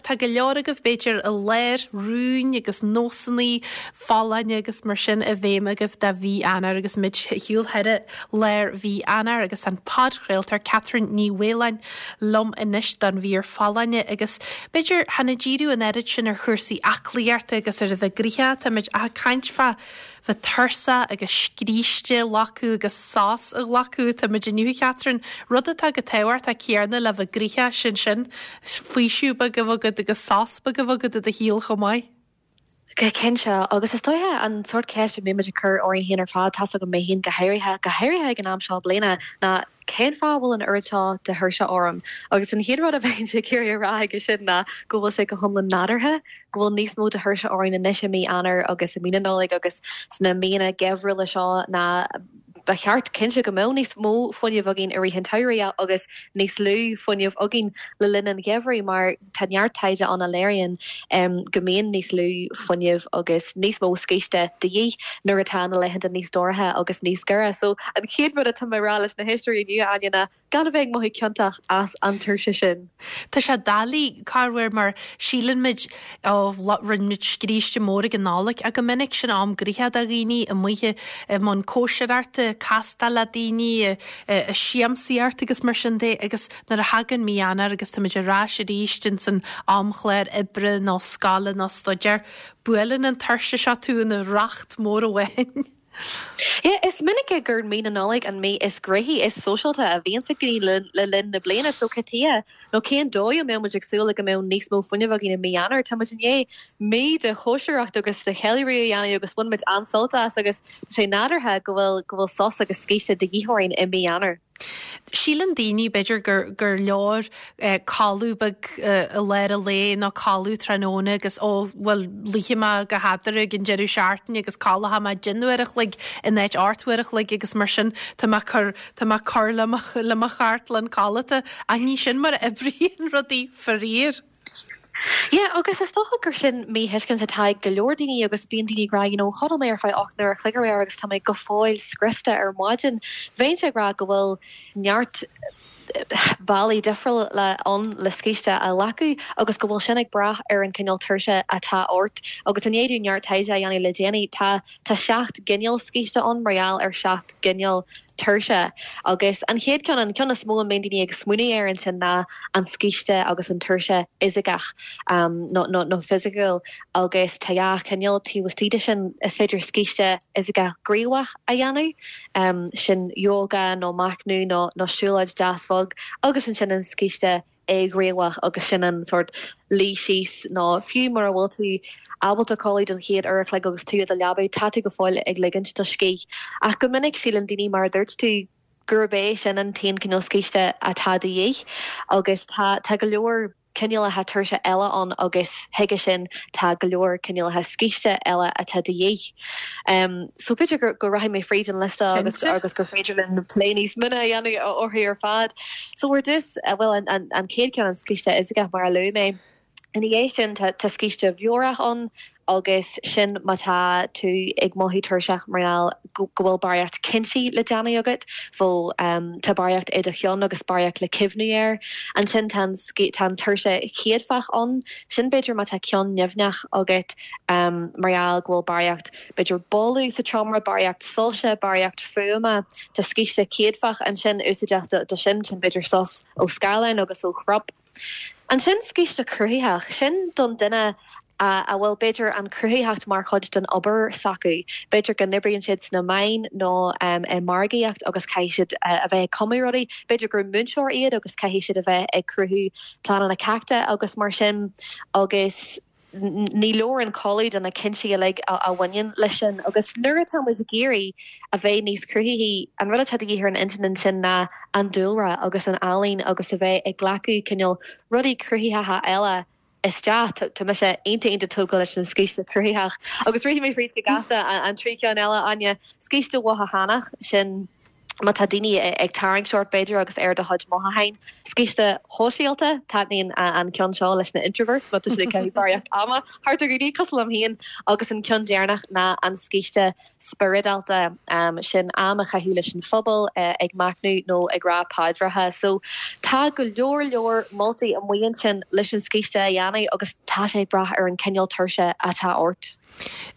Tá go leor agaibh b'fhéidir i lár rúin agus nósanna folláine agus mar sin i bhfeidhm agaibh do mhí Eanáir agus muid ar shiúl thar lár mhí Eanáir agus an podchraoltóir Catherine Ní Mhaoláin liom anois don mhír folláine agus b'fhéidir chan ag díriú an oiread sin ar chúrsaí aclaíochta agus ar a bheith gnoitheach, táimid ach ag caint fá bheith tuirseach agus scíste a ghlacadh agus sos a ghlacadh. Táimid inniu, a Chatherine, rud atá chomh tábhachtach céanna le bheith gnoitheach, sin sin, faoiseamh beag a bheith agat agus sos beag a bheith agat i do shaol chomh maith. Go cinnte, agus is dóiche an sórt ceist a mbíonn muid ag cur orainn féin ar fad, tá's agam mé féin go háirithe, go háirithe ag an am seo bliana, ná cén fáth a bhfuil an oiread seo de thuirse orm? Agus an chéad rud a bheinnse ag iarraidh a rá aige sin ná go bhfuil sé go hiomlán nádúrtha go bhfuil níos mó de thuirse orainn anois i mí Eanáir agus i mí na Nollag agus sna míonna geimhriúla seo ná ba cheart cinnte go mbeadh níos mó fuinnimh againn i rith an tsamhraidh agus níos lú fuinnimh againn le linn an gheimhridh mar tá neart taighde ann a léiríonn go mbíonn níos lú fuinnimh agus níos mó scíste de dhíth nuair atá na laethanta níos dorcha agus níos giorra. So an chéad rud atá mé a rá leis na héisteoirí inniu, Áine, ná Gan a bheith ag mothú ciontach as an tuirse sin. Tá sé doiligh, corruair, mar síleann muid, ó, rinne muid scríste mór ag an Nollaig, ach go minic sin am gnoitheach do dhaoine, amuigh i mbun cóisireachta, castáil le daoine, ag siamsaíocht agus mar sin de agus nuair a thagann mí Eanáir agus táimid ar ais arís ins an amchlár oibre nó scoile nó staidéir, buaileann an tuirse seo tú ina racht mór amháin. Yeah, is minic gur mí na Nollag an mí is gnoithí, is sóisialta a bhíonns ag daoine le linn na bliana, so cad chuige nó cén dóigh a mbeadh muid ag súil le go mbeadh níos mó fuinnimh againn i mí Eanáir? Tá muid i ndiaidh mí de chóisireacht agus de cheiliúradh a dhéanamh agus bhain muid an-sult as agus tá sé nádúrtha go bhfuil go bhfuil sos agus scíste de dhíth orainn i mí Eanáir. Síleann daoine, b'fhéidir, gur gur leor codladh beag i lár an lae nó codladh tráthnóna agus ó, bhuel, luífidh mé go headra ag an deireadh seachtaine agus codlóidh mé deich n-uair a chloig in áit 8 uair a chloig agus mar sin tá mé ag cur, tá mé ag cur le mo, le mo chartlann codlata. Ach ní sin mar a oibríonn rudaí, faraor. Yeah, agus is dócha gur sin míthuiscint atá ag go leor daoine agus bíonn daoine ag rá, you know, chodail mé ar feadh 8 n-uair a chloig aréir agus tá mé go fóill scriosta ar maidin. Bheinnse ag rá go bhfuil neart bealaí difriúla ann le scíste a ghlacadh agus go bhfuil sin ag brath ar an cineál tuirse atá ort. Agus i ndiaidh dúinn neart taighde a dhéanamh le déanaí, tá tá 7 gcineál scíste ann mar gheall ar 7 gcineál tuirse. Agus an chéad cheann, an ceann is mó a mbíonn daoine ag smaoineamh air ansin ná an scíste agus an tuirse fhisiceach nó nó fisiciúil agus tá dhá chineál taobh istigh de sin. Is féidir scíste fhisiceach gníomhach a dhéanamh, sin yoga nó machnamh nó nó siúlóid deas bhog agus ansin an scíste éighníomhach agus sin an sórt luí síos nó fiú mura bhfuil tú ábalta codladh don chéad uair a chloig agus tú i do leaba, tá tú go fóill ag ligint do scíth. Ach go minic síleann daoine, mar a dúirt tú, gurb é sin an t-aon cineál scíste atá de dhíth agus tá tá go leor cineálacha tuirse eile ann agus chuige sin tá go leor cineálacha scíste eile atá de dhíth. So b'fhéidir go go rachaidh mé fríd an liosta agus agus gur féidir linn plé níos mine a dhéanamh orthu ar fad. So ar dtús, bhuel an an an chéad ceann an scíste fhisiceach mar a luaigh mé. Ina dhiaidh sin tá tá scíste mheabhrach ann agus sin má tá tú ag mothú tuirseach mar gheall go go bhfuil barraíocht cinntí le déanamh agat, bhfuil tá barraíocht i do cheann agus barraíocht le cuimhniú air. Ansin tá an tá an tuirse chéadfach ann, sin b'fhéidir má tá ceann nimhneach agat mar gheall go bhfuil barraíocht b'fhéidir boladh sa tseomra, barraíocht soilse, barraíocht fuaime. Tá scíste céadfach ansin úsáideach do sin, sin b'fhéidir sos ó scáileán agus ó chrop. Ansin scíste cruthaitheach, sin don duine a bhfuil b'fhéidir an chruthaitheacht mar chuid den obair s'acu. B'fhéidir go n-oibríonn siad sna meáin nó i margaíocht agus caithfidh siad a bheith ag cumadh rudaí. B'fhéidir gur múinteoir iad agus caithfidh siad a bheith ag cruthú pleananna ceachta agus mar sin agus ní leor an codladh do na cinntí uilig a bhaineann leis sin. Agus nuair atá muid ag iarraidh a bheith níos cruthaithí, an rud atá de dhíth ar an intinn ansin ná an dúlra agus an ealaín agus a bheith ag glacadh cineál rudaí cruthaitheacha eile isteach. Tá mise iontach iontach tógtha leis an scíste cruthaitheach. Agus rithfidh mé fríd go gasta an trí cheann eile, Áine. Scíste mhothúchánach, sin. Má tá daoine ag tarraingt ort, b'fhéidir, agus ar do chuid mothúcháin. Scíste shóisialta, taitníonn an ceann seo leis na introverts má tá siad ag caitheamh barraíocht ama thart ar dhaoine, cosúil liom féin. Agus an ceann deireanach ná an scíste spioradálta, sin am a chaitheamh leis an phobal, ag machnamh nó ag rá paidreacha. So tá go leor leor moltaí amuigh ansin leis an scíste a dhéanamh agus tá sé ag brath ar an cineál tuirse atá ort.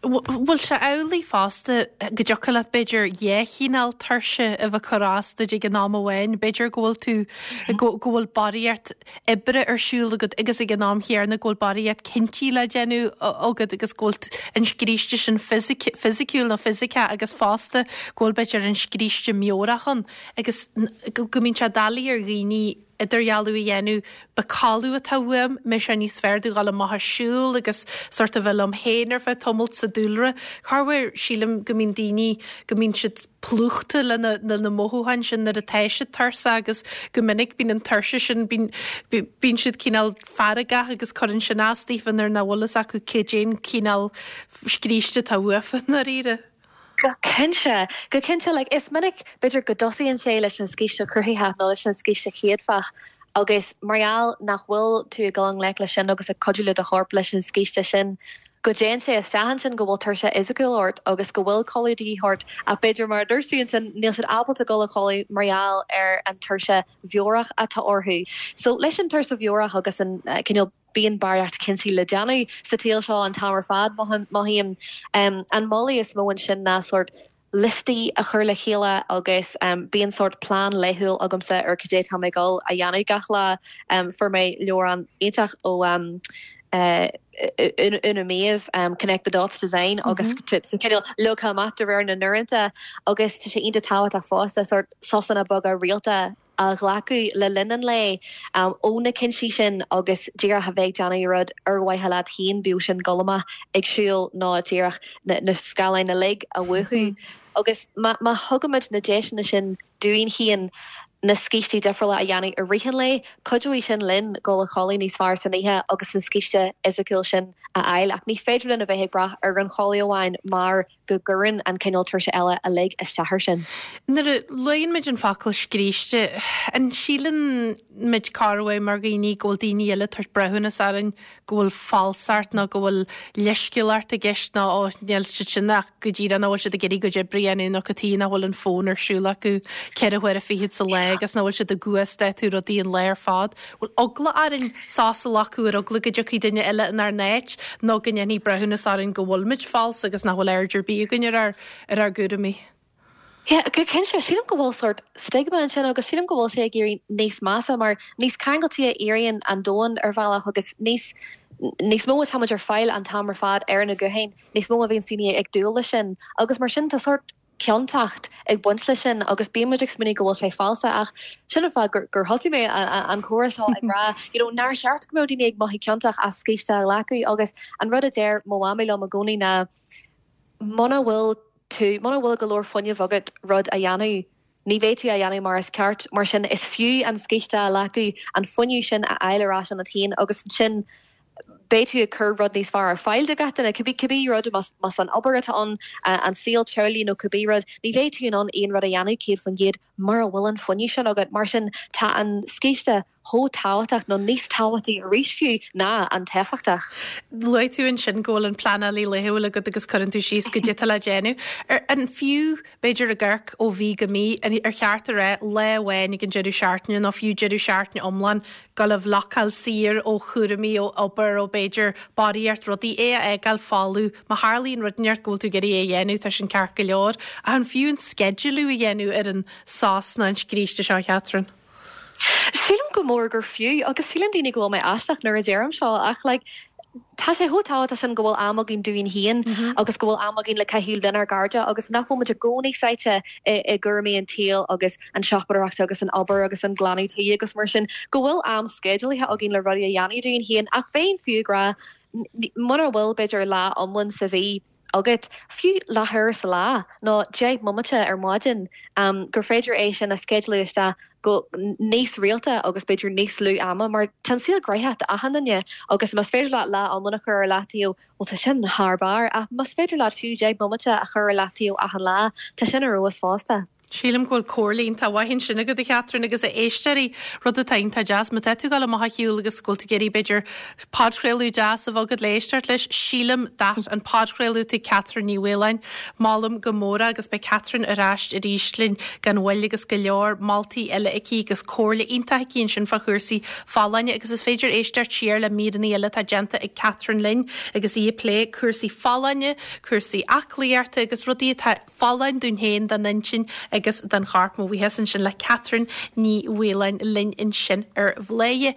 Bhfuil sé amhlaidh fosta go dtiocfadh leat b'fhéidir dhá chineál tuirse a bheith ag cur as duit ag an am amháin? B'fhéidir go bhfuil tú, go bhfuil barraíocht oibre ar siúl agat agus ag an am chéanna go bhfuil barraíocht cinntí le déanamh agat agus go bhfuil an scríste sin fisiciúil nó fisiceach agus fosta go bhfuil b'fhéidir an scríste meabhrach ann agus go mbíonn sé doiligh ar dhaoine idirdhealú a dhéanamh, ab é codladh atá uaim, an mbeadh sé níos fearr domh dhul amach ag siúl agus sort of bheith liom féin ar feadh tamaill sa dúlra. Corruair sílim go mbíonn daoine, go mbíonn siad plúchta le na, le na mothúcháin sin nuair atá siad tuirseach agus go minic bíonn an tuirse sin, bíonn, bíonn siad cineál feargach agus cuireann sin as daofa nuair nach bhfuil fhios acu cad é an cineál scríste atá uafa i ndáiríre. Go cinnte, go cinnte. Like, is minic, b'fhéidir, go dtosaíonn sé leis an scíste chruthaitheach nó leis an scíste chéadfach agus mar gheall nach bhfuil tú ag dul i ngleic leis sin agus ag cuidiú le do chorp leis an scíste sin, go dtéann sé isteach ansin go bhfuil tuirse fhisiciúil ort agus go bhfuil codladh de dhíth ort ach b'fhéidir, mar a dúirt tú ansin, níl siad ábalta dul a chodladh mar gheall ar an tuirse mheabhrach atá orthu. So, leis an tuirse mheabhrach agus an cineál. Bíonn barraíocht cinntí le déanamh sa tsaol seo an t-am ar fad, mothaím. An moladh is mó ansin ná sórt liostaí a chur le chéile agus bíonn sórt plean laethúil agamsa ar cad é atá mé ag dul a dhéanamh gach lá. Fuair mé leabhrán iontach ó Úna Méabh, Connect the Dots Design agus tá cineál leagtha amach de réir na n-uaireanta agus tá sé iontach tábhachtach fosta sórt sosanna beaga rialta a ghlacadh le linn an lae ó na cinntí sin agus díreach a bheith ag déanamh rud ar mhaithe leat féin, bíodh sin dul amach ag siúl nó díreach na scáileáin uilig a mhúchadh. Agus má thugaimid na deiseanna sin dúinn féin na scístí difriúla a dhéanamh i rith an lae, cuideoidh sin linn dul a chodladh níos fearr san oíche agus an scíste fhisiciúil sin a fháil. Ach ní féidir linn a bheith ag brath ar an chodladh amháin mar go gcuireann an cineál tuirse eile uilig isteach air sin. Nuair a luann muid an focal scríste, an síleann muid corruair mar dhaoine go bhfuil daoine eile ag tabhairt breithiúnas orainn, go bhfuil falsacht nó go bhfuil leisciúlacht i gceist nó ó níl siad sin ach go díreach nach bhfuil siad ag iarraidh a gcuid oibre a dhéanamh nó cad chuige nach bhfuil an fón ar siúl acu ceithre huaire fichead sa lá agus nach bhfuil siad ag uasdátú rudaí an lá ar fad. Bhfuil eagla orainn sos a ghlacadh ar eagla go dtiocfaidh duine eile inár n-áit nó go ndéanfaí breithiúnas orainn go bhfuil muid falsa agus nach bhfuil aird ar bith againn ar ár ar ár gcúraimí? Yeah, go cinnte. Sílim go bhfuil sórt stigma ansin agus sílim go bhfuil sé ag éirí níos measa mar níos ceangailtí a éiríonn an domhan ar bhealach agus níos níos mó atáimid ar fáil an t-am ar fad ar na gutháin, níos mó a bhíonns daoine ag dúil leis sin agus mar sin tá sórt ciontacht ag baint leis sin agus bíonn muid ag smaoineamh go bhfuil sé falsa ach sin an fáth gur gur thosaigh mé an comhrá seo ag rá you know nár cheart go mbeadh daoine ag mothú ciontach as scíste a ghlacadh agus an rud a deir mo mhamaí liom i gcónaí ná muna bhfuil tú muna bhfuil go leor fuinnimh agat rud a dhéanamh ní bheidh tú á dhéanamh mar is ceart mar sin is fiú an scíste a ghlacadh an fuinneamh sin a fháil ar ais ionat féin agus ansin beidh tú ag cur rud níos fearr ar fáil do gach duine, cibé cibé rud, más más an obair atá ann, an saol teaghlaigh nó cibé rud, ní bheidh tú in ann aon rud a dhéanamh 100% mura bhfuil an fuinneamh sin agat. Mar sin, tá an scíste chomh tábhachtach, nó níos tábhachtaí arís fiú, ná an t-éifeachtach. Luaigh tú ansin go bhfuil an pleanálaí laethúil agat agus cuireann tú síos goidé atá le déanamh. Ar an fiú, b'fhéidir ag amharc ó mhí go mí, ar cheart a rá lá amháin ag an deireadh seachtaine nó fiú deireadh seachtaine iomlán dul a bhlocáil saor ó chúraimí, ó obair, ó b'fhéidir barraíocht rudaí, é a fhágáil folamh. Má tharlaíonn rud inteacht go bhfuil tú ag iarraidh é a dhéanamh, tá sin ceart go leor. Ach an fiú an sceidealú a dhéanamh ar an sos nó an scríste seo, a Chatherine? Sílim go mór gur fiú, agus síleann daoine go bhfuil mé aisteach nuair a deirim seo, ach like, tá sé chomh tábhachtach sin go bhfuil am againn dúinn féin agus go bhfuil am againn le caitheamh lenár gcairde agus nach bhfuil muid i gcónaí sáite i gcúraimí an tsaoil agus an tsiopadóireacht agus an obair agus an glanadh tí agus mar sin, go bhfuil am sceidealaithe againn le rudaí a dhéanamh dúinn féin ach bheinn fiú ag rá mura bhfuil b'fhéidir lá iomlán sa mhí agat, fiú leathuair sa lá nó 10 mbomaite ar maidin, gur féidir é sin a sceidealú isteach go níos rialta agus b'fhéidir níos lú ama mar tá an saol gnoitheach d'achan duine agus más féidir leat lá iomlán a chur ar leataobh, bhuel tá sin thar barr ach más féidir leat fiú 10 mbomaite a chur ar leataobh achan lá, tá sin ar fheabhas fosta. Sílim go bhfuil comhairle iontach mhaith ansin agat a Chatherine agus a éisteoirí, rud atá iontach deas, má tá tú ag dul amach ar shiúl agus go bhfuil tú ag iarraidh b'fhéidir podchraoladh deas a bheith agat le éisteacht leis, sílim that an podchraoladh atá ag Catherine Ní Mhaoláin, molaim go mór é agus beidh Catherine ar ais arís linn gan mhoill agus go leor moltaí eile aici agus comhairle iontach aici ansin fá chúrsaí folláine agus is féidir éisteacht siar le míreanna eile atá déanta ag Catherine linn agus í ag plé cúrsaí folláine, cúrsaí aclaíochta agus rudaí atá folláin dúinn féin, don intinn agus don chorp. Mo bhuíochas ansin le Catherine Ní Mhaoláin linn ansin ar Bhladhaire.